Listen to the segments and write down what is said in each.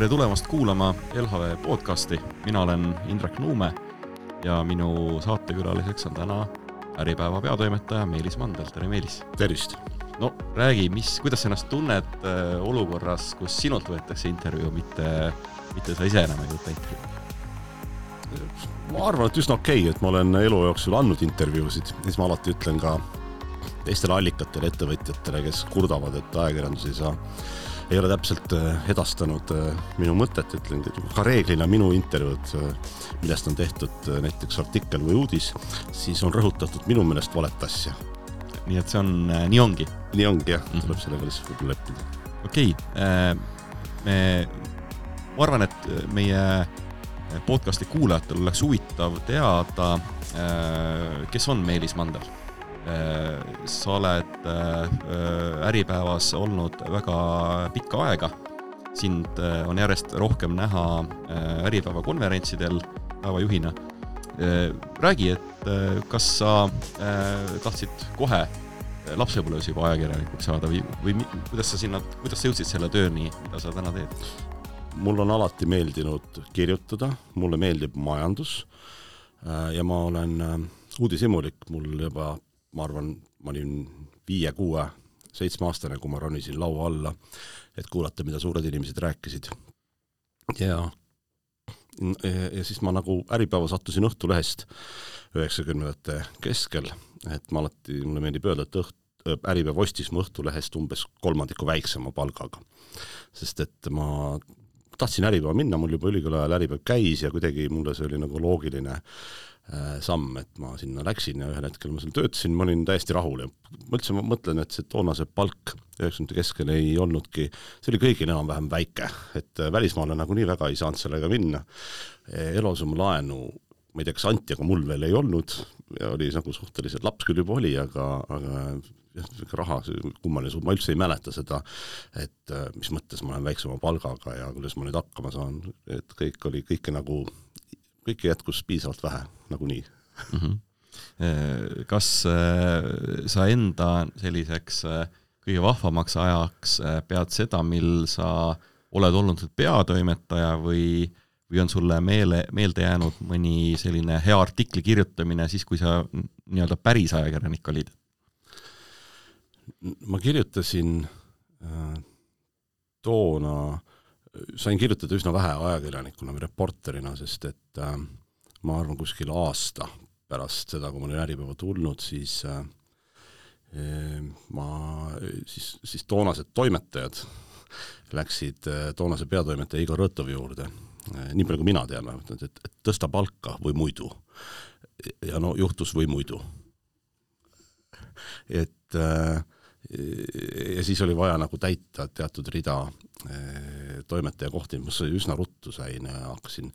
Tere tulemast kuulama LHV podcasti. Mina olen Indrek Nuume ja minu saatekülaliseks on täna Äripäeva peatoimetaja Meelis Mandel. Tere Meelis! Tervist! No räägi, kuidas sa ennast tunned olukorras, kus sinult võetakse intervjuu, mitte sa ise enam ei võtta intervjuu? Ma arvan, et üsna okei, et ma olen elu jooksul andnud intervjuusid. Siis ma alati ütlen ka teistele allikatele, ettevõtjatele, kes kurdavad, et ajakirjandus ei ole täpselt edastanud minu mõtet, ütlen, et ka reeglina minu intervjuud, millest on tehtud näiteks artikkel või uudis, siis on rõhutatud minu meelest valet asja. Nii et see on, nii ongi? Nii ongi, jah. Tuleb sellega lihtsalt võib-olla leppida. Okei. Ma arvan, et meie podcasti kuulajatel oleks huvitav teada, kes on Meelis Mandel. Sa oled Äripäevas olnud väga pikka aega. Sind on järjest rohkem näha Äripäeva konverentsidel päevajuhina. Räägi, et kas sa tahtsid kohe lapsepõlves juba ajakirjanikuks saada või kuidas sa jõudsid selle tööni, mida sa täna teed? Mul on alati meeldinud kirjutada, mulle meeldib majandus ja ma olen uudishimulik. Mul juba, ma arvan, ma olin 5, 6, 7 aastane, kui ma ronisin laua alla, et kuulata, mida suured inimesed rääkisid. Ja siis ma nagu Äripäeva sattusin Õhtulehest 90ndate keskel, et mulle meeldib öelda, et Äripäeva ostis mu Õhtulehest umbes 3 väiksema palgaga. Sest et ma tahtsin Äripäeva minna, mul juba ülikooli ajal Äripäev käis ja kuidagi mulle see oli nagu loogiline samm, et ma sinna läksin ja ühel hetkel ma seal töötasin, ma olin täiesti rahul ja ma mõtlen, et see toonase palk 90 keskel ei olnudki, see oli kõigil enam-vähem väike, et välismaale nagu nii väga ei saanud sellega minna. Eluaseme laenu, ma ei tea, kas anti, aga mul veel ei olnud ja oli nagu suhteliselt laps küll juba oli, aga raha, kummaline, ma üldse ei mäleta seda, et mis mõttes ma olen väiksema palgaga ja kuidas ma nüüd hakkama saan, et kõik jätkus piisavalt vähe, nagu nii. Kas sa enda selliseks kõige vahvamaks ajaks pead seda, mil sa oled olnud peatoimetaja või on sulle meelde jäänud mõni selline hea artikli kirjutamine siis, kui sa nii-öelda päris ajakirjanik olid? Ma kirjutasin toona, sain kirjutada üsna vähe ajakirjanikuna või reporterina, sest et ma arvan kuskil aasta pärast seda, kui ma olin Äripäeva tulnud, siis toonased toimetajad läksid toonase peatoimetaja Igor Rõtovi juurde, nii palju kui mina tean, et tõsta palka või muidu. Ja no juhtus või muidu. Ja siis oli vaja nagu täita teatud rida toimetaja kohti, mis üsna ruttu sain ja hakkasin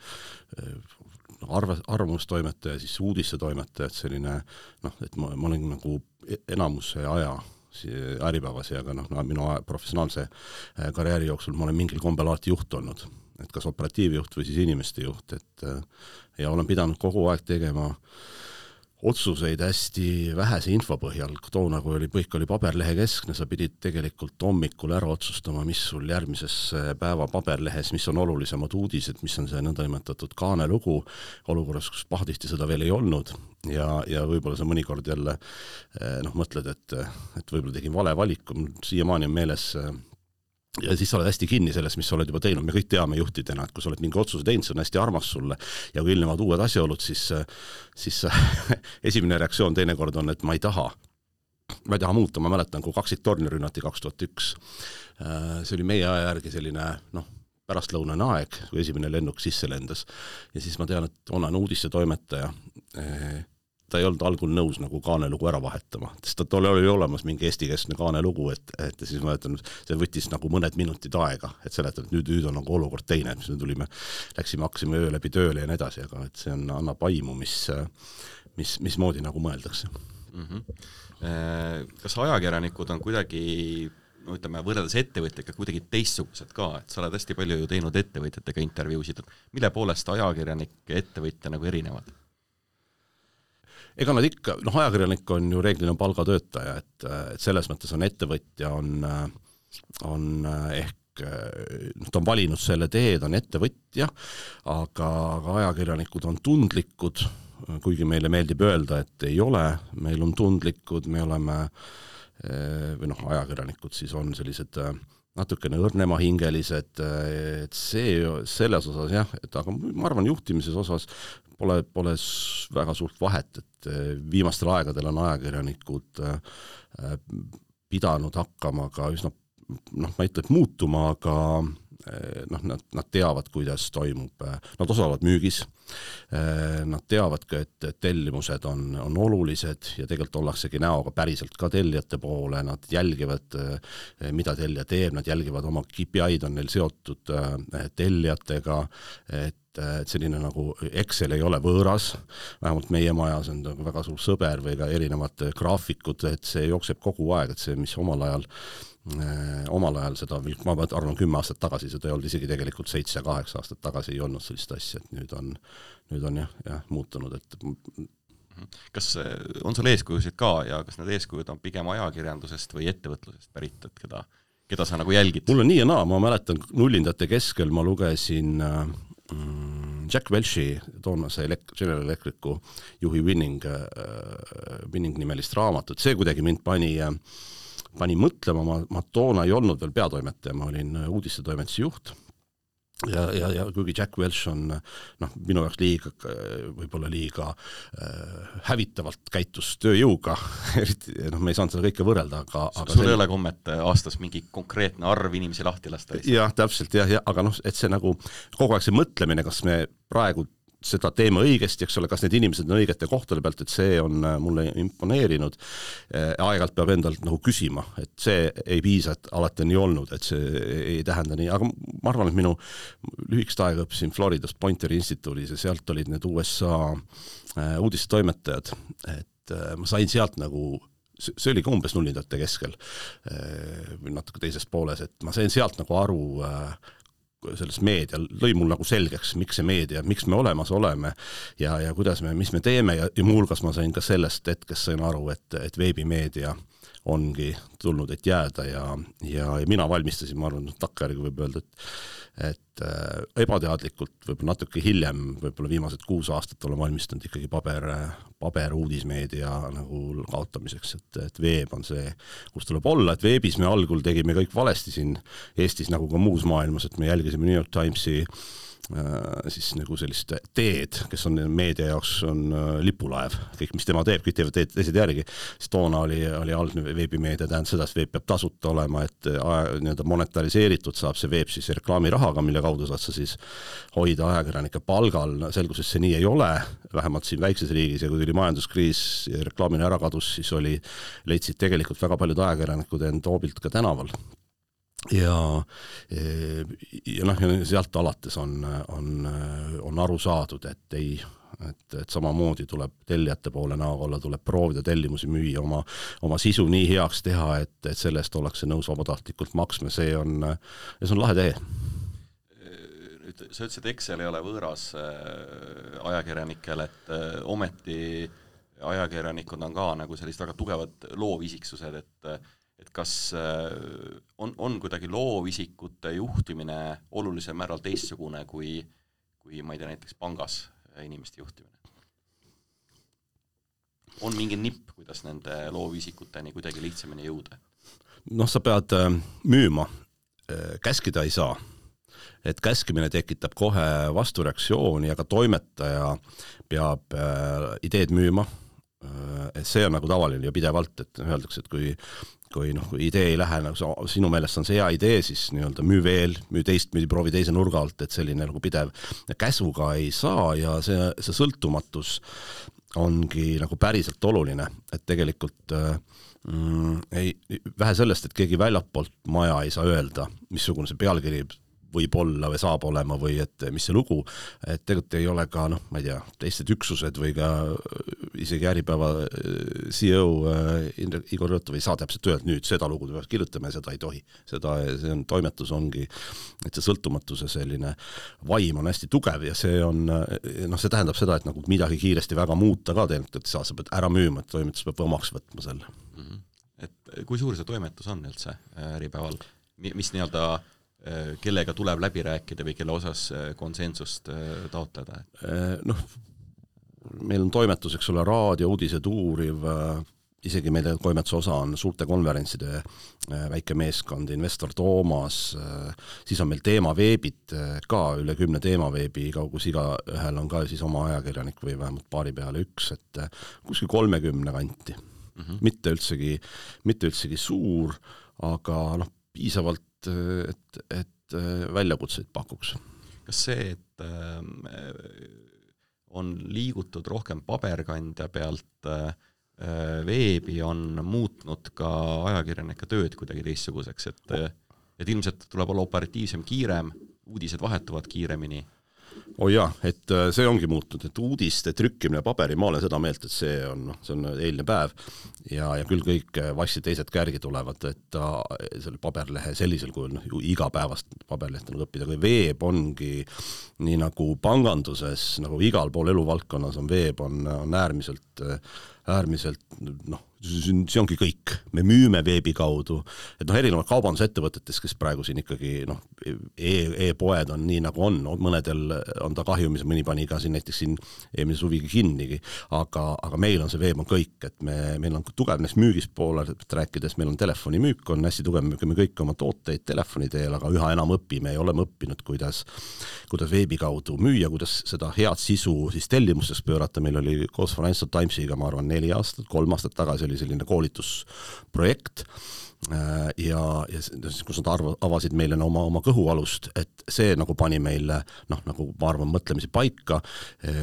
arvamustoimetaja, siis uudisse toimetaja, et selline, et ma olin nagu enamuse aja Äripäevas ja ka minu professionaalse karjääri jooksul ma olen mingil kombel alati juht olnud, et kas operatiivjuht või siis inimeste juht, ja olen pidanud kogu aeg tegema otsuseid hästi vähese info põhjal. Toona, kui kõik oli paberlehe keskne, sa pidid tegelikult hommikul ära otsustama, mis sul järgmises päeva paberlehes, mis on olulisemad uudised, mis on see nõndanimetatud kaanelugu, olukorras, kus pahatihti seda veel ei olnud ja võib-olla sa mõnikord jälle mõtled, et võib-olla tegin vale valiku, siiamaani on meeles. Ja siis sa oled hästi kinni selles, mis sa oled juba teinud. Me kõik teame juhtidena, et kui sa oled mingi otsuse teinud, see on hästi armas sulle ja kui ilmnevad uued asjaolud, siis esimene reaktsioon teinekord on, et ma ei taha muuta. Ma mäletan, kui 2 torni rünnati 2001. See oli meie aja järgi selline pärastlõunane aeg, kui esimene lennuk sisse lendas. Ja siis ma tean, et olen uudisse toimetaja. Ta ei olnud algul nõus nagu kaanelugu ära vahetama, sest ta oli olemas mingi eesti-keskne kaanelugu, et siis ma ütlen, see võttis nagu mõned minutid aega, et seletada, et nüüd on nagu olukord teine, mis me hakkasime öö läbi tööle ja nii edasi, aga et see annab aimu, mismoodi nagu mõeldakse. Kas ajakirjanikud on kuidagi, võrreldes ettevõtjaga kuidagi teistsugused ka, et sa oled hästi palju ju teinud ettevõtjatega intervjuusid, mille poolest ajakirjanik ja ettevõtja nagu erinevad? Ega nad ikka, ajakirjanik on ju reeglina palgatöötaja, et selles mõttes on ettevõtja on ehk ta on valinud selle tee, ta on ettevõtja, aga ajakirjanikud on tundlikud, kuigi meile meeldib öelda, et ei ole, meil on tundlikud, me oleme, või ajakirjanikud siis on sellised natukene õrnemahingelised, et selles osas jah, aga ma arvan juhtimises osas pole väga suurt vahet, et viimastel aegadel on ajakirjanikud pidanud hakkama ka üsna, ma ei ütle, et muutuma, aga nad teavad, kuidas toimub, nad osalevad müügis, nad teavad ka, et tellimused on olulised ja tegelikult ollaksegi näoga päriselt ka tellijate poole, nad jälgivad, mida tellija teeb, nad jälgivad oma KPI-d on neil seotud tellijatega, et selline nagu Excel ei ole võõras, vähemalt meie majas on väga suur sõber või ka erinevad graafikud, et see jookseb kogu aeg, et see, mis omal ajal seda, ma arvan 10 aastat tagasi, seda ei olnud isegi tegelikult 7-8 aastat tagasi ei olnud sellist asja, et nüüd on jah muutunud, et kas on sul eeskujusid ka ja kas need eeskujud on pigem ajakirjandusest või ettevõtlusest pärit, et keda sa nagu jälgid? Mul on nii ja naa, ma mäletan nullindate keskel ma lugesin Jack Welchi, toonase General Electricu juhi Winning nimelist raamatut, see kuidagi mind pani mõtlema, ma toona ei olnud veel peatoimetaja, ma olin uudistetoimetuse juht ja kuigi Jack Welch on minu jaoks võib-olla liiga hävitavalt käitus tööjõuga, eriti me ei saanud seda kõike võrrelda, aga sul ei ole kommet aastas mingi konkreetne arv inimesi lahti lasta? Jah, täpselt, aga et see nagu kogu aeg see mõtlemine, kas me praegu seda teeme õigesti, eks ole, kas need inimesed on õigete kohtade pealt, et see on mulle imponeerinud. Aeg-ajalt peab endalt nagu küsima, et see ei piisa, et alati on nii olnud, et see ei tähenda nii, aga ma arvan, et minu lühikest aega õppisin Floridas Pointeri instituudis ja sealt olid need USA uudistetoimetajad, et ma sain sealt nagu, see oli ka umbes nullindate keskel või natuke teises pooles, et ma sain sealt nagu aru sellest meedia, lõi mul nagu selgeks, miks see meedia, miks me olemas oleme ja kuidas mis me teeme ja muuhulgas ma sain ka sellest hetkest sain aru, et veebimeedia ongi tulnud, et jääda ja mina valmistasin, ma arvan, takkajärgi võib öelda, et ebateadlikult võib-olla natuke hiljem, võib-olla viimased 6 aastat olen valmistanud ikkagi paber uudismeedia nagu kaotamiseks, et veeb on see, kus tuleb olla, et veebis me algul tegime kõik valesti siin Eestis nagu ka muus maailmas, et me jälgisime New York Timesi siis nagu sellist teed, kes on meedia jaoks on lipulaev, kõik mis tema teeb, kõik teevad teised järgi, siis toona oli algne veebimeedia, tähendab seda, et veeb peab tasuta olema, et monetariseeritud saab see veeb siis reklaamirahaga, mille kaudu saad sa siis hoida ajakirjanike palgal, selgus, et see nii ei ole, vähemalt siin väikses riigis ja kui tuli majanduskriis ja reklaamine ära kadus, siis leidsid tegelikult väga paljud ajakirjanikud end hoobilt ka tänaval. Ja sealt alates on aru saadud, et samamoodi tuleb tellijate poole näoga olla, tuleb proovida tellimusi müüa, oma sisu nii heaks teha, et sellest ollakse nõus vabatahtlikult maksma, see on lahe tee. Sa ütlesid, et Excel ei ole võõras ajakirjanikel, et ometi ajakirjanikud on ka nagu sellised väga tugevad loovisiksused, et kas on kuidagi loovisikute juhtimine olulisel määral teistsugune kui ma ei tea, näiteks pangas inimeste juhtimine? On mingi nipp, kuidas nende loovisikuteni kuidagi lihtsamini jõuda? Sa pead müüma, käskida ei saa. Et käskimine tekitab kohe vastureaktsiooni, aga toimetaja peab ideed müüma. See on nagu tavaline ja pidevalt, et öeldakse, et kui idee ei lähe, nagu sinu meelest on see hea idee, siis müü veel, proovi teise nurga alt, et selline nagu pidev käsuga ei saa ja see sõltumatus ongi nagu päriselt oluline, et tegelikult vähe sellest, et keegi väljapoolt maja ei saa öelda, missugune see pealkiri võib olla või saab olema või et mis see lugu, et tegelikult ei ole ka, ma ei tea, teised üksused või ka isegi Äripäeva CEO Igor Rõtov ei saa täpselt öelda, nüüd seda lugu peaks kirjutama ja seda ei tohi. See on toimetus ongi, et see sõltumatuse selline vaim on hästi tugev ja see on, see tähendab seda, et nagu midagi kiiresti väga muuta ka tegelikult, et sa pead ära müüma, et toimetus peab omaks võtma selle. Et kui suur see toimetus on üldse Äripäeval? Mis nii-öelda kellega tuleb läbi rääkida või kelle osas konsensust taotleda? Noh, meil on toimetus, eks ole, raadio, uudised uuriv, isegi meil toimetuse osa on suurte konverentside väike meeskond, investor Toomas, siis on meil teemaveebid ka, üle 10 teemaveebi, kus iga ühel on ka siis oma ajakirjanik või vähemalt paari peale üks, et kuskil 30 kanti. Mitte üldsegi suur, aga noh, piisavalt, et väljakutseid pakuks. Kas see, et on liigutud rohkem paberkandja pealt veebi, on muutnud ka ajakirjanike tööd kuidagi teistsuguseks, et ilmselt tuleb olla operatiivsem, kiirem, uudised vahetuvad kiiremini? Jaa, et see ongi muutunud, et uudiste trükkimine paberi, ma olen seda meelt, et see on eilne päev ja küll kõik vassi teised kärgi tulevad, et selle paberlehe sellisel kujul, igapäevast paberlehte nagu õppida, kui veeb ongi nii nagu panganduses, nagu igal pool eluvaldkonnas on veeb, on äärmiselt see ongi kõik. Me müüme veebi kaudu, et erinevad kaubandusettevõtetes, kes praegu siin ikkagi e-poed on nii nagu on, mõnedel on ta kahjumis, mõni pani ka siin näiteks siin eelmise suvigi kinnigi, aga meil on see veeb on kõik, et meil on tugev näiteks müügist poole rääkides, meil on telefonimüük, on hästi tugev, müüme kõik oma tooteid telefoni teel, aga üha enam õpime ja oleme õppinud, kuidas veebi kaudu müüa, kuidas seda head sisu siis tellimusteks pöörata. Meil oli koos Financial Timesiga, ma arvan, 3 aastat tagasi oli selline koolitusprojekt ja kus nad avasid meile oma kõhualust, et see nagu pani meile, nagu ma arvan, mõtlemisi paika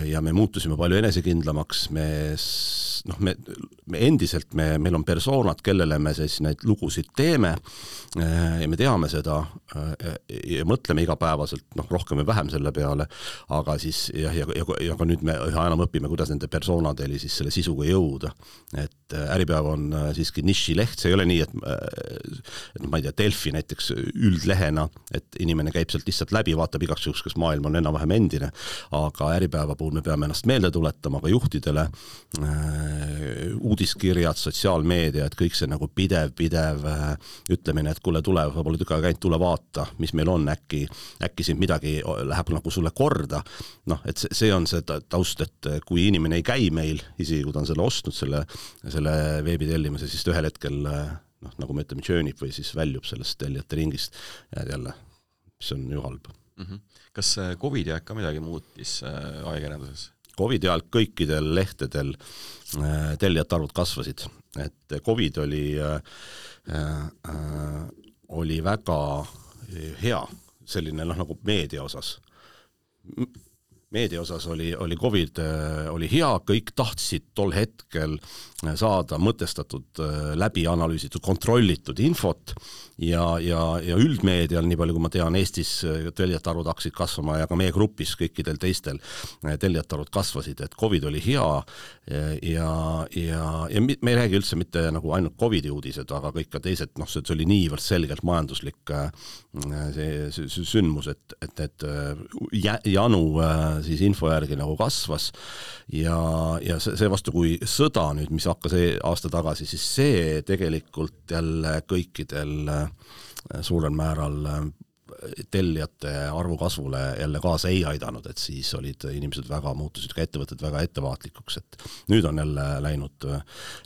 ja me muutusime palju enesekindlamaks, me endiselt, meil on persoonad, kellele me siis neid lugusid teeme ja me teame seda ja mõtleme igapäevaselt, rohkem või vähem selle peale, aga siis ja ka nüüd me üha enam õpime, kuidas nende persoonadeli siis selle sisuga jõuda. Et Äripäev on siiski nišileht, see ei ole nii, et ma ei tea, Delfi näiteks üldlehena, et inimene käib sealt lihtsalt läbi, vaatab igaks juhuks, kas maailm on enam-vähem endine, aga Äripäeva puhul me peame ennast meelde tuletama ka juhtidele, uudiskirjad, sotsiaalmeedia, et kõik see nagu pidev ütlemine, et kuule, tule, sa pole tükka käinud, tule vaata, mis meil on, äkki siin midagi läheb nagu sulle korda. Et see on see taust, et kui inimene ei käi meil, isegi kui ta on selle ostnud, selle veebi tellimise, siis ühel hetkel nagu me ütleme, tjöönib või siis väljub sellest tellijate ringist ja jälle, mis on ju halb. Kas COVID aeg ka midagi muutis ajakirjanduses? COVID ajal kõikidel lehtedel tellijate arvud kasvasid, et COVID oli väga hea selline nagu meedia osas. Meedia osas oli COVID oli hea, kõik tahtsid tol hetkel saada mõtestatud, läbi analüüsitud, kontrollitud infot ja üldmeedial, nii palju kui ma tean, Eestis tellijate arvud hakkasid kasvama ja ka meie grupis kõikidel teistel tellijate arvud kasvasid, et COVID oli hea ja me ei räägi üldse mitte nagu ainult COVID-i uudised, aga kõik ka teised, see oli niivõrd selgelt majanduslik see sündmus, et janu siis info järgi nagu kasvas ja see vastu, kui sõda nüüd, mis hakkas aasta tagasi, siis see tegelikult jälle kõikidel suurel määral tellijate arvu kasvule jälle kaasa ei aidanud, et siis olid inimesed muutusid ka ettevõtted väga ettevaatlikuks, et nüüd on jälle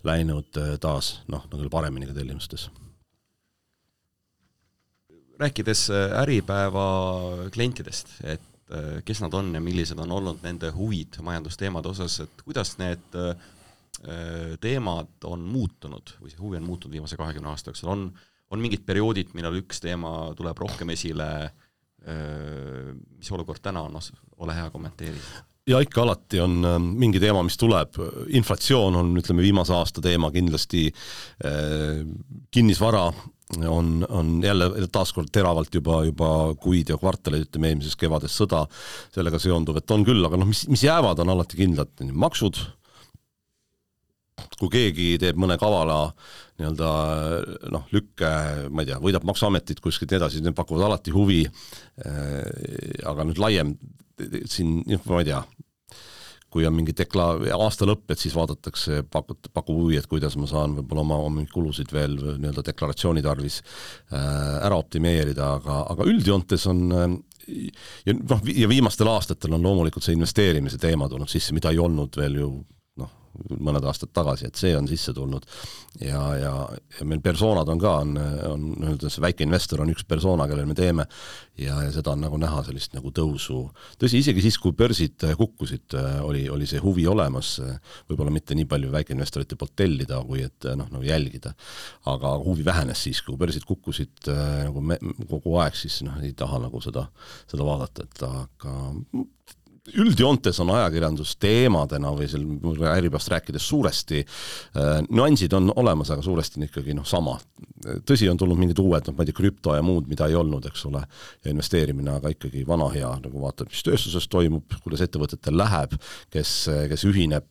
läinud taas, nagu paremini ka tellimustes. Rääkides Äripäeva klientidest, et kes nad on ja millised on olnud nende huvid majandusteemade osas, et kuidas need teemad on muutunud või see huvi on muutunud viimase 20 aasta jooksul, on mingid perioodid, millal üks teema tuleb rohkem esile, mis olukord täna on, ole hea kommenteeri. Ja ikka alati on mingi teema, mis tuleb, inflatsioon on, ütleme, viimase aasta teema kindlasti, kinnisvara on jälle taaskord teravalt juba kuid ja kvartalid, ütleme, eelmises kevades sõda sellega seonduv, et on küll, aga mis jäävad, on alati kindlad maksud. Kui keegi teeb mõne kavala lükke, ma ei tea, võidab maksuametit kuskilt edasi, need pakuvad alati huvi, aga nüüd laiem siin, ma ei tea, kui on mingi aasta lõpp, et siis vaadatakse, pakub huvi, et kuidas ma saan võib-olla oma kulusid veel nii-öelda deklaratsiooni tarvis ära optimeerida, aga üldjoontes on ja viimastel aastatel on loomulikult see investeerimise teema tulnud sisse, mida ei olnud veel ju mõned aastad tagasi, et see on sisse tulnud ja meil persoonad on ka, see väike investor on üks persoona, kellel me teeme ja seda on nagu näha sellist nagu tõusu. Tõsi, isegi siis, kui börsid kukkusid, oli see huvi olemas, võib-olla mitte nii palju väikeinvestorite poolt tellida, kui et nagu jälgida, aga huvi vähenes siis, kui börsid kukkusid nagu kogu aeg, siis ei taha nagu seda vaadata, et aga üldjoontes on ajakirjandus teemadena või Äripäevast rääkides suuresti, nüansid on olemas, aga suuresti on ikkagi sama. Tõsi, on tulnud mingid uued, ma ei tea, krüpto ja muud, mida ei olnud, eks ole, ja investeerimine, aga ikkagi vana hea, nagu vaatab, mis tööstuses toimub, kuidas ettevõtetel läheb, kes ühineb,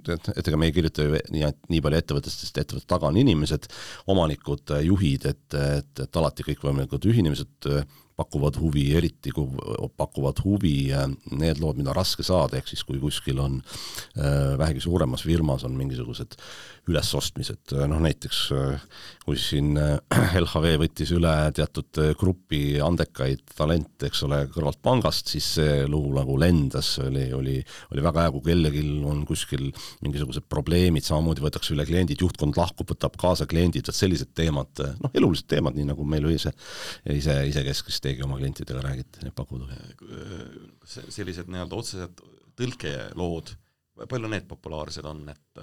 et ega me ei kirjuta ju nii palju ettevõttest, sest ettevõtte taga on inimesed, omanikud, juhid, et alati kõik võimalikud ühinemised pakuvad huvi, eriti kui pakuvad huvi need lood, mida on raske saada, ehk siis kui kuskil on vähegi suuremas firmas on mingisugused ülesostmised, näiteks kui siin LHV võttis üle teatud grupi andekaid talente, eks ole, kõrvalt pangast, siis see lugu nagu lendas, oli väga hea, kui kellelgi on kuskil mingisugused probleemid, samamoodi võetakse üle kliendid, juhtkond lahkub, võtab kaasa kliendid, sellised teemad, elulised teemad, nii nagu meil isekeskis teegi oma klientidele räägite, need pakuvad. Sellised nii-öelda otsesed tõlkelood, palju need populaarsed on, et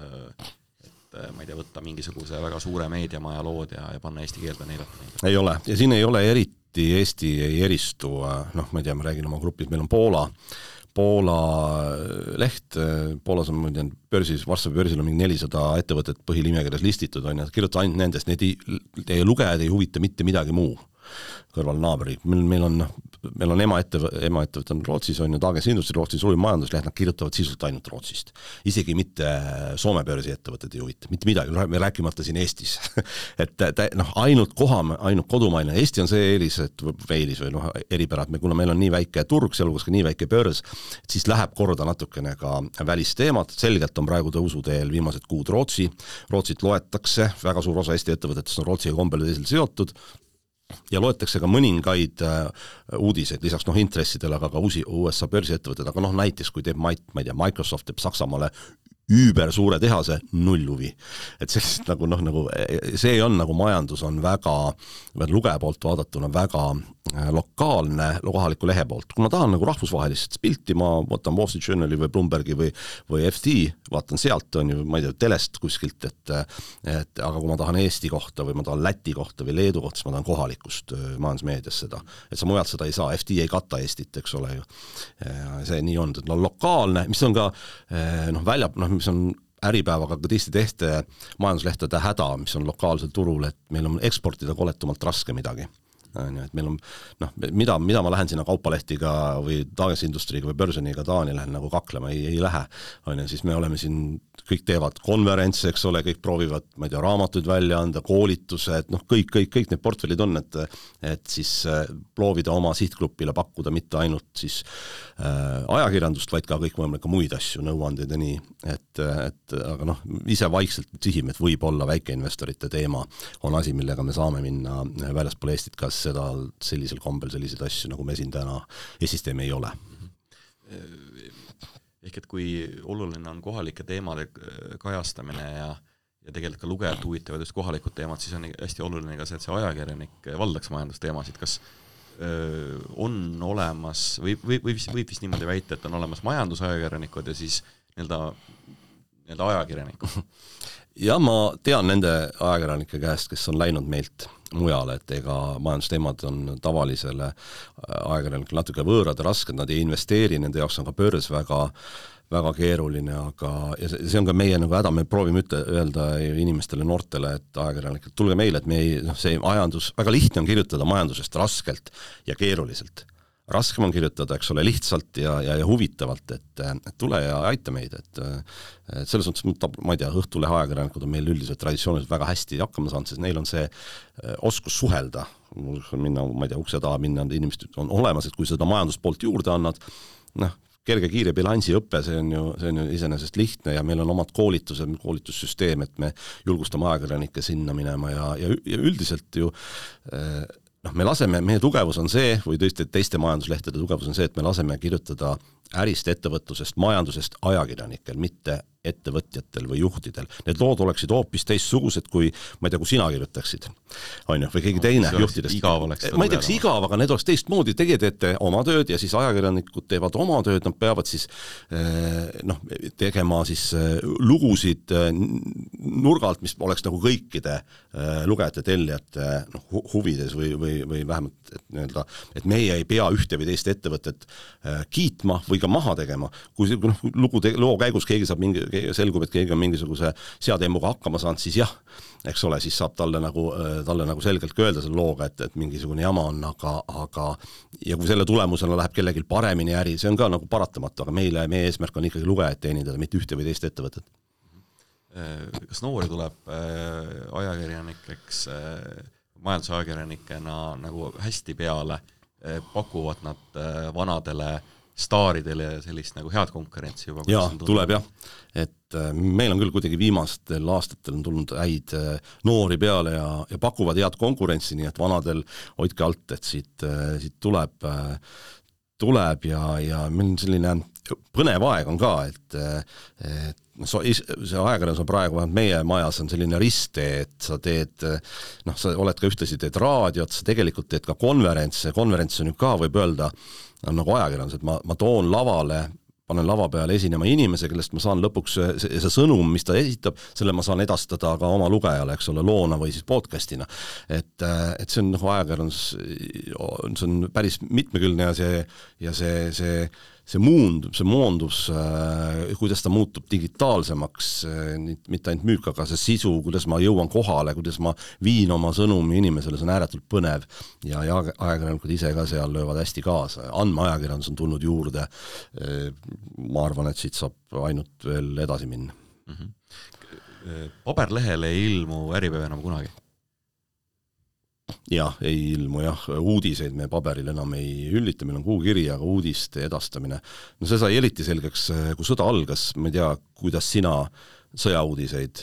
ma ei tea, võtta mingisuguse väga suure meediamaja lood ja panna eesti keelde neilata neid? Ei ole, ja siin ei ole eriti, Eesti ei eristu, ma ei tea, ma räägin oma grupis, meil on Poola leht, Poolas on börsis, Varssavi börsil on mingi 400 ettevõtet põhilimekirjas listitud, kirjuta ainult nendest, teie lugejad ei huvita mitte midagi muu kõrval naabri. Meil on emaettevõte on Rootsis, on ju Dagens Industri, Rootsi suurim majandusleht, nad kirjutavad sisult ainult Rootsist. Isegi mitte Soome börsi ettevõtted ei huvita, mitte midagi, me rääkimata siin Eestis. et ainult kodumaine. Eesti on see eelis või eripärad, kuna meil on nii väike turg, sealhulgas ka nii väike börs, siis läheb korda natukene ka välisteemad. Selgelt on praegu tõusuteel viimased kuud Rootsit loetakse, väga suur osa Eesti ettevõtetest on Rootsiga kombel teisel seotud, ja loetakse ka mõningaid uudiseid, lisaks intressidele, aga ka USA börsiettevõtted, aga näiteks kui teeb Microsoft teeb Saksamaale üüber suure tehase, null huvi. Et sellist nagu see on nagu majandus on väga, lugeja poolt vaadatuna väga lokaalne kohaliku lehe poolt. Kui ma tahan nagu rahvusvahelist pilti, ma võtan Wall Street Journali või Bloombergi või FT, vaatan sealt, on ju, ma ei tea, telest kuskilt, aga kui ma tahan Eesti kohta või ma tahan Läti kohta või Leedu kohta, siis ma tahan kohalikust majandusmeedias seda. Et sa mujalt seda ei saa, FT ei kata Eestit, eks ole ju. See nii on, et lokaalne, mis on ka mis on Äripäevaga ka teiste majanduslehtede häda, mis on lokaalsel turul, et meil on eksportida koletumalt raske midagi. Et meil on, mida ma lähen sinna kaupalehtiga või Dagens Industriga või Börseniga Taani lähen nagu kaklema, ei lähe. Siis me oleme siin, kõik teevad konverentse, eks ole, kõik proovivad, ma ei tea, raamatuid välja anda, koolitused, kõik need portfellid on, et siis proovida oma sihtgrupile pakkuda mitte ainult siis ajakirjandust, vaid ka kõik võimalik muid asju, nõuandeid ja nii, aga ise vaikselt sihime, et võib-olla väikeinvestorite teema on asi, millega me saame minna väljaspool Eestit, kas seda sellisel kombel selliseid asju, nagu me siin täna Eestistem ei ole. Ehk et kui oluline on kohalike teemade kajastamine ja tegelikult ka lugejad huvitavad just kohalikud teemad, siis on hästi oluline ka see, et see ajakirjanik valdaks majandusteemasid. Kas on olemas, võib vist niimoodi väita, et on olemas majandusajakirjanikud ja siis nii-öelda ajakirjanikud? Ja ma tean nende ajakirjanike käest, kes on läinud meilt mujale, et ega majandusteemad on tavalisele ajakirjanikele natuke võõrad ja rasked, nad ei investeeri, nende jaoks on ka börs väga keeruline, aga ja see on ka meie nagu häda, me proovime öelda inimestele, noortele, et ajakirjanikele, tulge meile, et see majandus, väga lihtne on kirjutada majandusest raskelt ja keeruliselt. Raskem on kirjutada, eks ole, lihtsalt ja huvitavalt, et tule ja aita meid, et selles mõttes, ma ei tea, Õhtulehe ajakirjanikud on meil üldiselt traditsiooniliselt väga hästi hakkama saanud, sest neil on see oskus suhelda, minna, ma ei tea, ukse taha minna, inimesed on olemas, et kui seda majanduspoolt juurde annad, kerge kiire bilansiõppe, see on ju iseenesest lihtne ja meil on omad koolitussüsteem, et me julgustame ajakirjanikke sinna minema ja üldiselt ju me laseme, meie tugevus on see, või teiste majanduslehtede tugevus on see, et me laseme kirjutada ärist, ettevõtlusest, majandusest ajakirjanikel, mitte ettevõtjatel või juhtidel. Need lood oleksid hoopis teistsugused, kui, ma ei tea, kui sina kirjutaksid, on ju, või keegi teine juhtidest. Ma ei tea, kas igav, aga need oleks teistmoodi, teie teete oma tööd ja siis ajakirjanikud teevad oma tööd, nad peavad siis tegema siis lugusid nurgalt, mis oleks nagu kõikide lugejate, tellijate huvides või vähemalt, et meie ei pea ühte või teist ettevõtet kiitma või ka maha tegema. Kui loo käigus keegi saab selgub, et keegi on mingisuguse seademmuga hakkama saanud, siis jah, eks ole, siis saab talle nagu selgelt öelda selle looga, et mingisugune jama on, aga ja kui selle tulemusena läheb kellelgi paremini äri, see on ka nagu paratamatu, aga meie eesmärk on ikkagi lugejad teenindada, mitte ühte või teist ettevõtet. Kas noori tuleb ajakirjanikeks, majandusajakirjanikena nagu hästi peale, pakuvad nad vanadele staaridele ja sellist nagu head konkurentsi juba? Jaa, tuleb jah. Et meil on küll kuidagi viimastel aastatel on tulnud häid noori peale ja pakuvad head konkurentsi, nii et vanadel hoidke alt, et siit tuleb ja meil on selline põnev aeg on ka, et see ajakirjandus on praegu, meie majas on selline risttee, et sa teed, sa oled ka ühtlasi teed raadiot, sa tegelikult teed ka konverents on ju ka, võib öelda, nagu ajakirjandus, et ma toon lavale, panen lava peale esinema inimese, kellest ma saan lõpuks see sõnum, mis ta esitab, selle ma saan edastada ka oma lugejale, eks ole, loona või siis podcastina. Et see on ajakirjandus, see on päris mitmekülgne ja see moondus, kuidas ta muutub digitaalsemaks, mitte ainult müük, aga see sisu, kuidas ma jõuan kohale, kuidas ma viin oma sõnumi inimesele, see on ääretult põnev ja ajakirjanikud ise ka seal löövad hästi kaasa. Andmeajakirjandus on tulnud juurde, ma arvan, et siit saab ainult veel edasi minna. Paberlehele ei ilmu Äripäev enam kunagi? Jah, ei ilmu jah, uudiseid me paberil enam ei üllita, meil on kuukiri, aga uudiste edastamine. No see sai eriti selgeks, kui sõda algas, ma ei tea, kuidas sina sõjauudiseid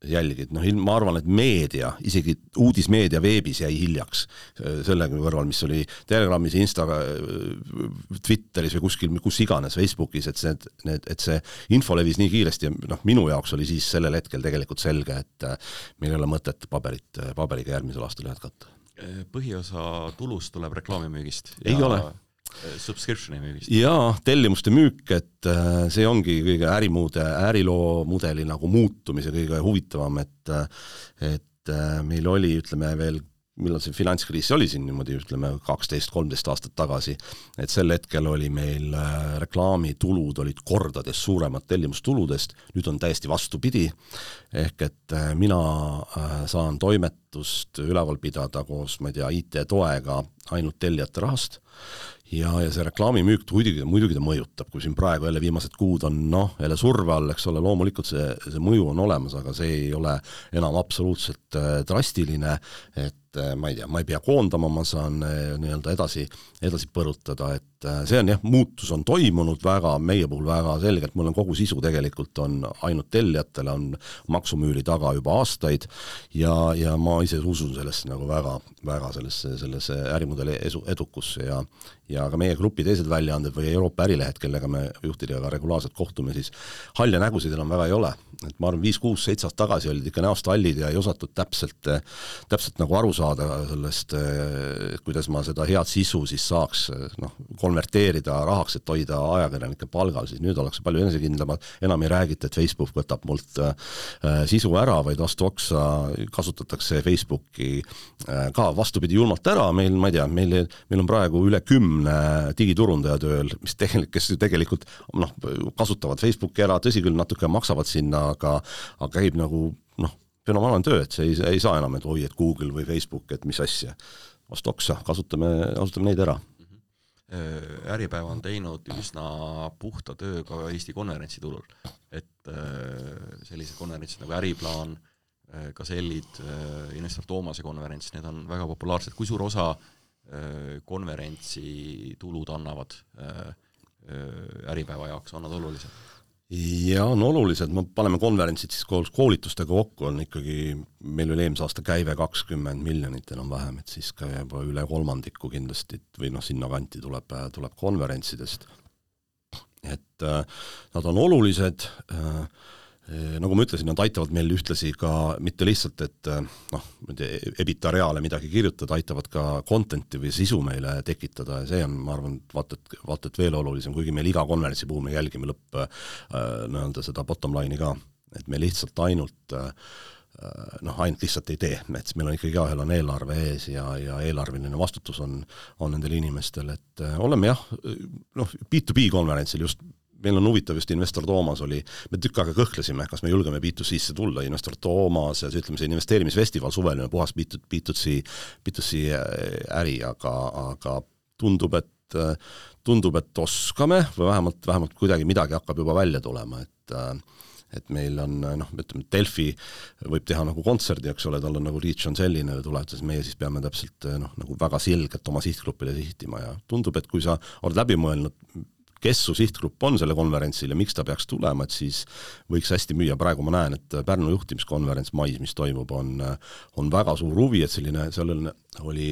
jälgid. Ma arvan, et meedia, isegi uudismeedia veebis jäi hiljaks sellega kõrval, mis oli Telegramis, Twitteris või kuskil, kus iganes, Facebookis, et see info levis nii kiiresti ja minu jaoks oli siis sellel hetkel tegelikult selge, et meil ei ole mõtet paberiga järgmisel aastal jätkata. Põhiosa tulust tuleb reklaamimüügist? Ei ole. Subscriptioni müügist? Jaa, tellimuste müük, et see ongi kõige äriloo mudeli nagu muutumise kõige huvitavam, et meil oli, ütleme veel, millal see finantskriis oli siin niimoodi, ütleme 12-13 aastat tagasi, et sel hetkel oli meil reklaamitulud olid kordades suuremad tellimustuludest, nüüd on täiesti vastupidi, ehk et mina saan toimetust üleval pidada koos, ma ei tea, IT-toega ainult tellijate rahast, ja see reklaamimüük muidugi ta mõjutab, kui siin praegu jälle viimased kuud on jälle surve all, eks ole, loomulikult see mõju on olemas, aga see ei ole enam absoluutselt drastiline, et ma ei tea, ma ei pea koondama, ma saan nii-öelda edasi põrutada, et see on jah, muutus on toimunud väga, meie puhul väga selgelt, mul on kogu sisu tegelikult on ainult tellijatele, on maksumüüri taga juba aastaid ja ma ise usun sellesse nagu väga sellesse ärimudeli edukusse ja ka meie grupi teised väljaanded või Euroopa ärilehed, kellega me juhtidega regulaarselt kohtume, siis halja nägusid enam väga ei ole. Et ma arvan, 5-6-7 aastat tagasi olid ikka näost hallid ja ei osatud täpselt nagu aru saada sellest, kuidas ma seda head sisu siis saaks konverteerida rahaks, et hoida ajakirjanike palgal, siis nüüd ollakse palju enesekindlamad, enam ei räägita, et Facebook võtab mult sisu ära, vaid vastu oksa kasutatakse Facebooki ka vastupidi julmalt ära, meil, ma ei tea, meil on praegu üle 10 digiturundaja tööl, kes tegelikult kasutavad Facebooki ära, tõsi küll, natuke maksavad sinna, aga käib nagu fenomenaalne töö, et see ei saa enam, et oi, et Google või Facebook, et mis asja. Vastu oksa, kasutame neid ära. Äripäev on teinud üsna puhta töö ka Eesti konverentsitulul, et sellised konverentsid nagu Äriplaan, Gasellid, Investor Toomase konverents, need on väga populaarsed. Kui suur osa konverentsi tulud annavad Äripäeva jaoks, on nad olulised? Ja on olulised, me paneme konverentsid siis koolitustega kokku, on ikkagi, meil oli eelmise aasta käive 20 miljonit enam vähem, et siis ka juba üle kolmandiku kindlasti või sinna kanti tuleb konverentsidest. Et nad on olulised, nagu ma ütlesin, nad aitavad meil ühtlasi ka mitte lihtsalt, et ebita reale midagi kirjutada, aitavad ka contenti või sisu meile tekitada ja see on, ma arvan, vaat et veel olulisem, kuigi meil iga konverentsi puhul me jälgime seda bottom line'i ka, et me lihtsalt ainult lihtsalt ei tee, et meil on ikkagi ühel on eelarve ees ja eelarveline vastutus on nendel inimestel, et oleme B2B konverentsil just meil on huvitav just Investor Toomas oli, me tükk aega kõhklesime, kas me julgeme B2C-sse tulla, Investor Toomas ja ütleme see investeerimisfestival suveline puhas B2C äri, aga tundub, et oskame või vähemalt kuidagi midagi hakkab juba välja tulema, et meil on, ütleme, Delfi võib teha nagu kontserdi, eks ole, tal on nagu reach on selline tuleb, siis meie siis peame täpselt nagu väga selgelt oma sihtgrupile sihtima ja tundub, et kui sa oled läbi mõelnud, kes su sihtgrupp on selle konverentsil ja miks ta peaks tulema, et siis võiks hästi müüa. Praegu ma näen, et Pärnu juhtimiskonverents mais, mis toimub, on väga suur huvi, et sellel oli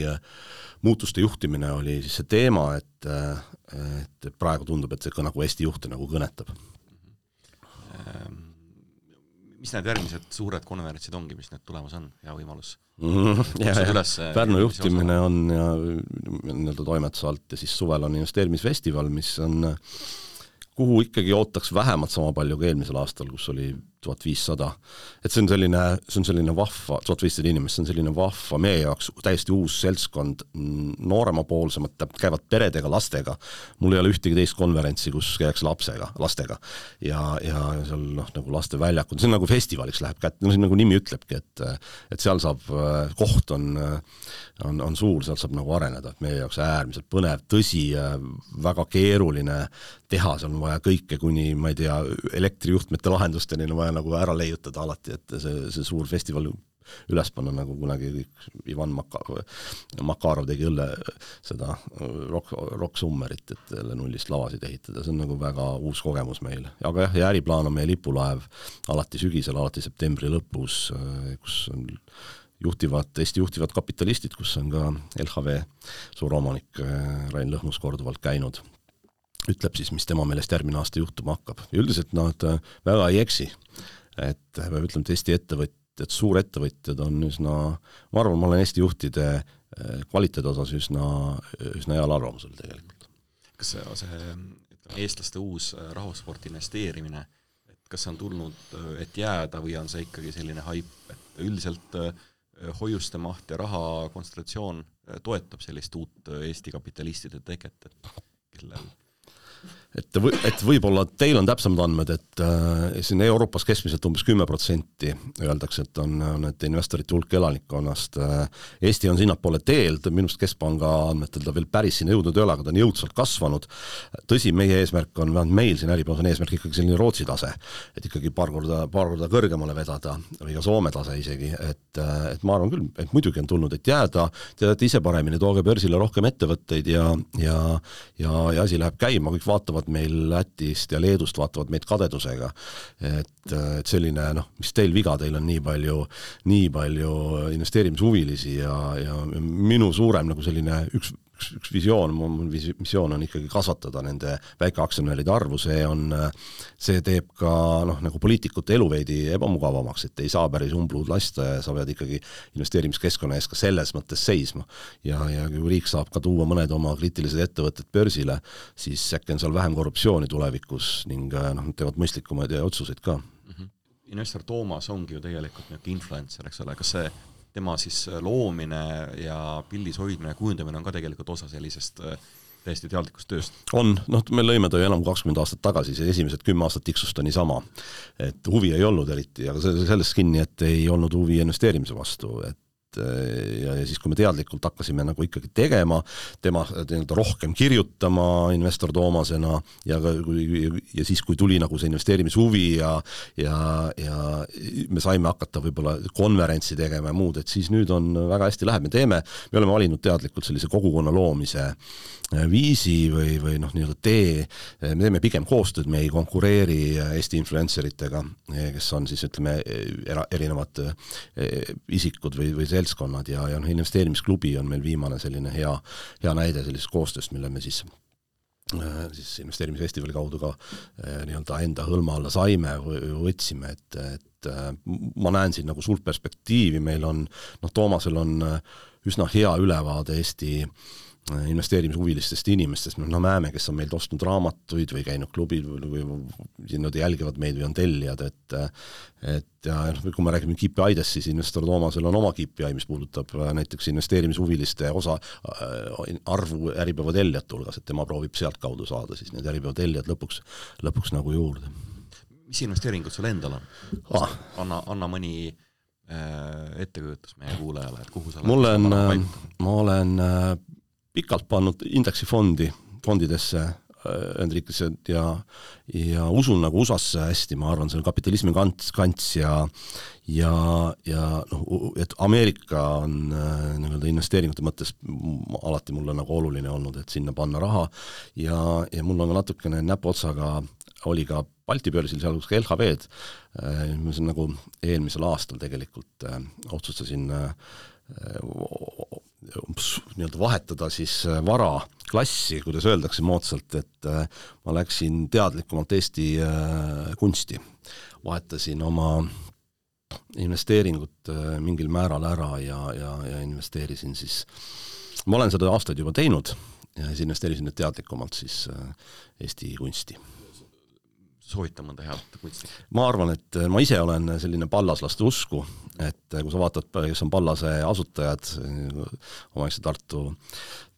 muutuste juhtimine oli siis see teema, et praegu tundub, et see nagu Eesti juhte nagu kõnetab. Mis need järgmised suured konverentsid ongi, mis need tulemas on, hea võimalus? Pärnu juhtimine on ja toimetuse alt ja siis suvel on investeerimisfestival, mis on, kuhu ikkagi ootaks vähemalt sama palju kui eelmisel aastal, kus oli 1500. Et see on selline vahva, 1500 inimest, see on selline vahva meie jaoks täiesti uus seltskond, nooremapoolsemad, käivad peredega, lastega. Mul ei ole ühtegi teist konverentsi, kus käiks lastega ja seal nagu laste väljakud, see on nagu festivaliks läheb kätte, see nagu nimi ütlebki, et seal saab, koht on suur, seal saab nagu areneda, et meie jaoks äärmiselt põnev, tõsi, väga keeruline teha, seal on vaja kõike kuni, ma ei tea, elektrijuhtmete lahendusteni on vaja nagu ära leiutada alati, et see suur festival üles panna, nagu kunagi Ivan Makarov tegi seda rock summerit, et nullist lavasid ehitada, see on nagu väga uus kogemus meil. Aga ja äriplaan on meie lipulaev alati sügisel, alati septembri lõpus, kus on Eesti juhtivad kapitalistid, kus on ka LHV suuromanik Rain Lõhmus korduvalt käinud. Ütleb siis, mis tema meelest järgmine aasta juhtuma hakkab. Ja üldiselt nad väga ei eksi, et me ütleme, et Eesti ettevõtjad, suurettevõtjad on üsna, ma arvan, ma olen Eesti juhtide kvaliteedi osas üsna heal arvamusel tegelikult. Kas see eestlaste uus rahvasporti investeerimine, et kas see on tulnud, et jääda või on see ikkagi selline haip, et üldiselt hoiuste maht ja raha kontsentratsioon toetab sellist uut Eesti kapitalistide teket, et kellel et võib-olla teil on täpsemad andmed, et siin Euroopas keskmiselt umbes 10% öeldakse, et on need investorite hulk elanikkonnast. Eesti on sinnapoole teelt, minust Keskpanga andmetel ta veel päris sinna jõudnud ei ole, aga ta on jõudsalt kasvanud. Tõsi, meie eesmärk on, meil siin äripäevas on eesmärk ikkagi selline Rootsi tase, et ikkagi paar korda kõrgemale vedada või ka Soome tase isegi, et ma arvan küll, et muidugi on tulnud, et jääda, teadate ise paremini, tooge börsile rohkem ettevõtteid ja asi läheb käima, kõik vaatavad meil Lätist ja Leedust vaatavad meid kadedusega, et selline, mis teil viga, teil on nii palju investeerimishuvilisi ja minu suurem nagu selline üks visioon on ikkagi kasvatada nende väikeaktsionäride arvu, see teeb ka nagu poliitikute elu veidi ebamugavamaks, et ei saa päris umbluud lasta ja sa pead ikkagi investeerimiskeskkonna ees ka selles mõttes seisma. Ja kui riik saab ka tuua mõned oma kriitilised ettevõtted börsile, siis äkki on seal vähem korruptsiooni tulevikus ning teevad mõistlikumaid otsuseid ka. Investor Toomas ongi ju tegelikult influencer, eks ole, kas see tema siis loomine ja pildis hoidmine ja kujundamine on ka tegelikult osa sellisest täiesti teadlikust tööst? On, me lõime ta ju enam 20 aastat tagasi, see esimesed 10 aastat tiksust on niisama, et huvi ei olnud eriti, aga sellest kinni, et ei olnud huvi investeerimise vastu, et ja siis, kui me teadlikult hakkasime nagu ikkagi tegema, tema rohkem kirjutama investor Toomasena ja siis, kui tuli nagu see investeerimishuvi ja me saime hakata võib-olla konverentsi tegema ja muud, et siis nüüd on väga hästi läheb, me oleme valinud teadlikult sellise kogukonna loomise viisi või nii-öelda tee, me teeme pigem koostööd, me ei konkureeri Eesti influenceritega, kes on siis ütleme erinevad isikud või seltskonnad ja investeerimisklubi on meil viimane selline hea näide sellisest koostööst, mille me siis investeerimisfestivali kaudu ka nii-öelda enda hõlma alla saime või võtsime, et ma näen siin nagu suurt perspektiivi, meil on, Toomasel on üsna hea ülevaade Eesti investeerimishuvilistest inimestest, me näeme, kes on meilt ostnud raamatuid või käinud klubid või nad jälgivad meid või on tellijad, et kui me räägime KPI-dest, siis investor Toomasel on oma KPI, mis puudutab näiteks investeerimishuviliste arvu Äripäeva tellijate hulgas, et tema proovib sealt kaudu saada siis need Äripäeva tellijad lõpuks nagu juurde. Mis investeeringud sul endal on? Anna mõni ettekujutus meie kuulajale, et kuhu sa ma olen pikalt pannud indeksifondidesse Hendrikesse ja usun nagu USA-sse hästi, ma arvan, see on kapitalismi kants ja et Ameerika on nii-öelda investeeringute mõttes alati mulle nagu oluline olnud, et sinna panna raha ja mul on ka natukene näpuotsaga oli ka Balti börsil, sealhulgas ka LHV-d, ma olen nagu eelmisel aastal tegelikult otsustasin nii-öelda vahetada siis vara klassi, kuidas öeldakse moodsalt, et ma läksin teadlikumalt Eesti kunsti. Vahetasin oma investeeringut mingil määral ära ja investeerisin siis, ma olen seda aastaid juba teinud ja siis investeerisin nüüd teadlikumalt siis Eesti kunsti. Soovita mõnda head kunsti? Ma arvan, et ma ise olen selline pallaslaste usku, et kui sa vaatad, kes on Pallase asutajad, omaegse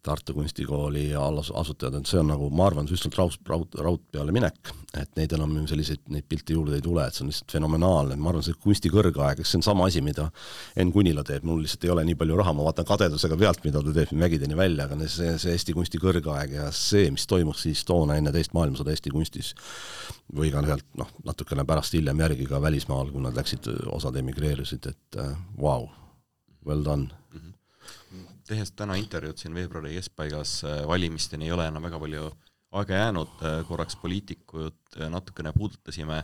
Tartu kunstikooli asutajad, et see on nagu, ma arvan, üsnalt raud peale minek, et neid enam neid pilte juurde ei tule, et see on lihtsalt fenomenaalne, ma arvan, see kunsti kõrgaeg, see on sama asi, mida Enn Kunila teeb, mul lihtsalt ei ole nii palju raha, ma vaatan kadedusega pealt, mida ta teeb mägideni välja, aga see Eesti kunsti kõrgaeg ja see, mis toimus siis toona enne teist maailmasõda Eesti kunstis või ka natukene pärast hiljem järgi ka välismaal, kui nad läksid, osad emigreerusid, et wow, well done. Tehes täna intervjuud siin veebruari keskpaigas valimisteni ei ole enam väga palju aega jäänud, korraks poliitikud natukene puudutasime,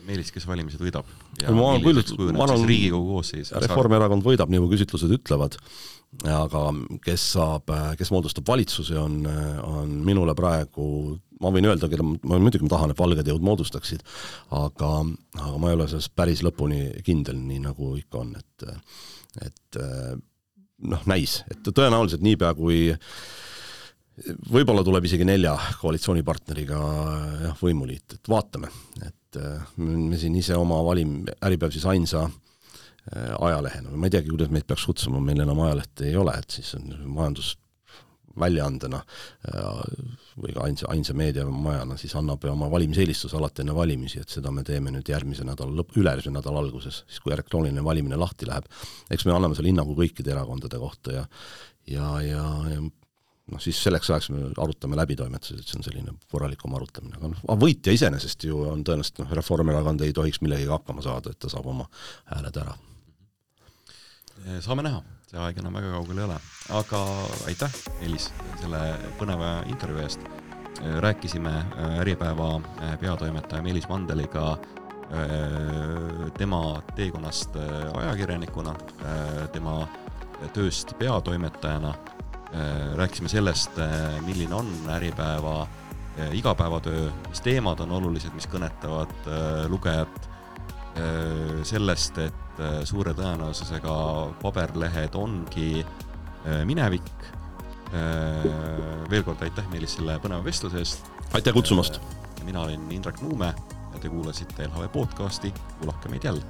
Meelis, kes valimised võidab ja milliseks kujuneb siis Riigikogu koosseis? Reformierakond võidab, nii kui küsitlused ütlevad, aga kes moodustab valitsuse, on minule praegu, ma võin öelda, ma muidugi tahan, et valged jõud moodustaksid, aga ma ei ole selles päris lõpuni kindel, nii nagu ikka on, et näis, et tõenäoliselt niipea kui võib-olla tuleb isegi 4 koalitsioonipartneriga võimuliit, et vaatame, et me siin ise oma Äripäev siis ainsa ajalehena, ma ei teagi, kuidas meid peaks kutsuma, meil enam ajalehte ei ole, et siis on majandusväljaandena või ka ainsa meediamajana siis annab oma valimiseelistuse alati enne valimisi, et seda me teeme nüüd ülejärgmise nädala alguses, siis kui elektrooniline valimine lahti läheb. Eks me anname selle hinnangu kõikide erakondade kohta ja siis selleks ajaks me arutame läbitoimetuses, et see on selline korralikum arutamine. Aga võitja iseenesest ju on tõenäoliselt, Reformierakond ei tohiks millegagi hakkama saada, et ta saab oma hääled ära. Saame näha, see aeg enam väga kaugel ei ole. Aga aitäh, Meelis, selle põneva intervjuu eest. Rääkisime Äripäeva peatoimetaja Meelis Mandeliga tema teekonnast ajakirjanikuna, tema tööst peatoimetajana. Rääkisime sellest, milline on Äripäeva igapäevatöö, mis teemad on olulised, mis kõnetavad lugejat, sellest, et suure tõenäosusega paberlehed ongi minevik. Veel kord aitäh Meelis selle põneva vestluse eest. Aitäh kutsumast! Mina olin Indrek Nuume ja te kuulasite LHV podcasti, kuulake meid jälle.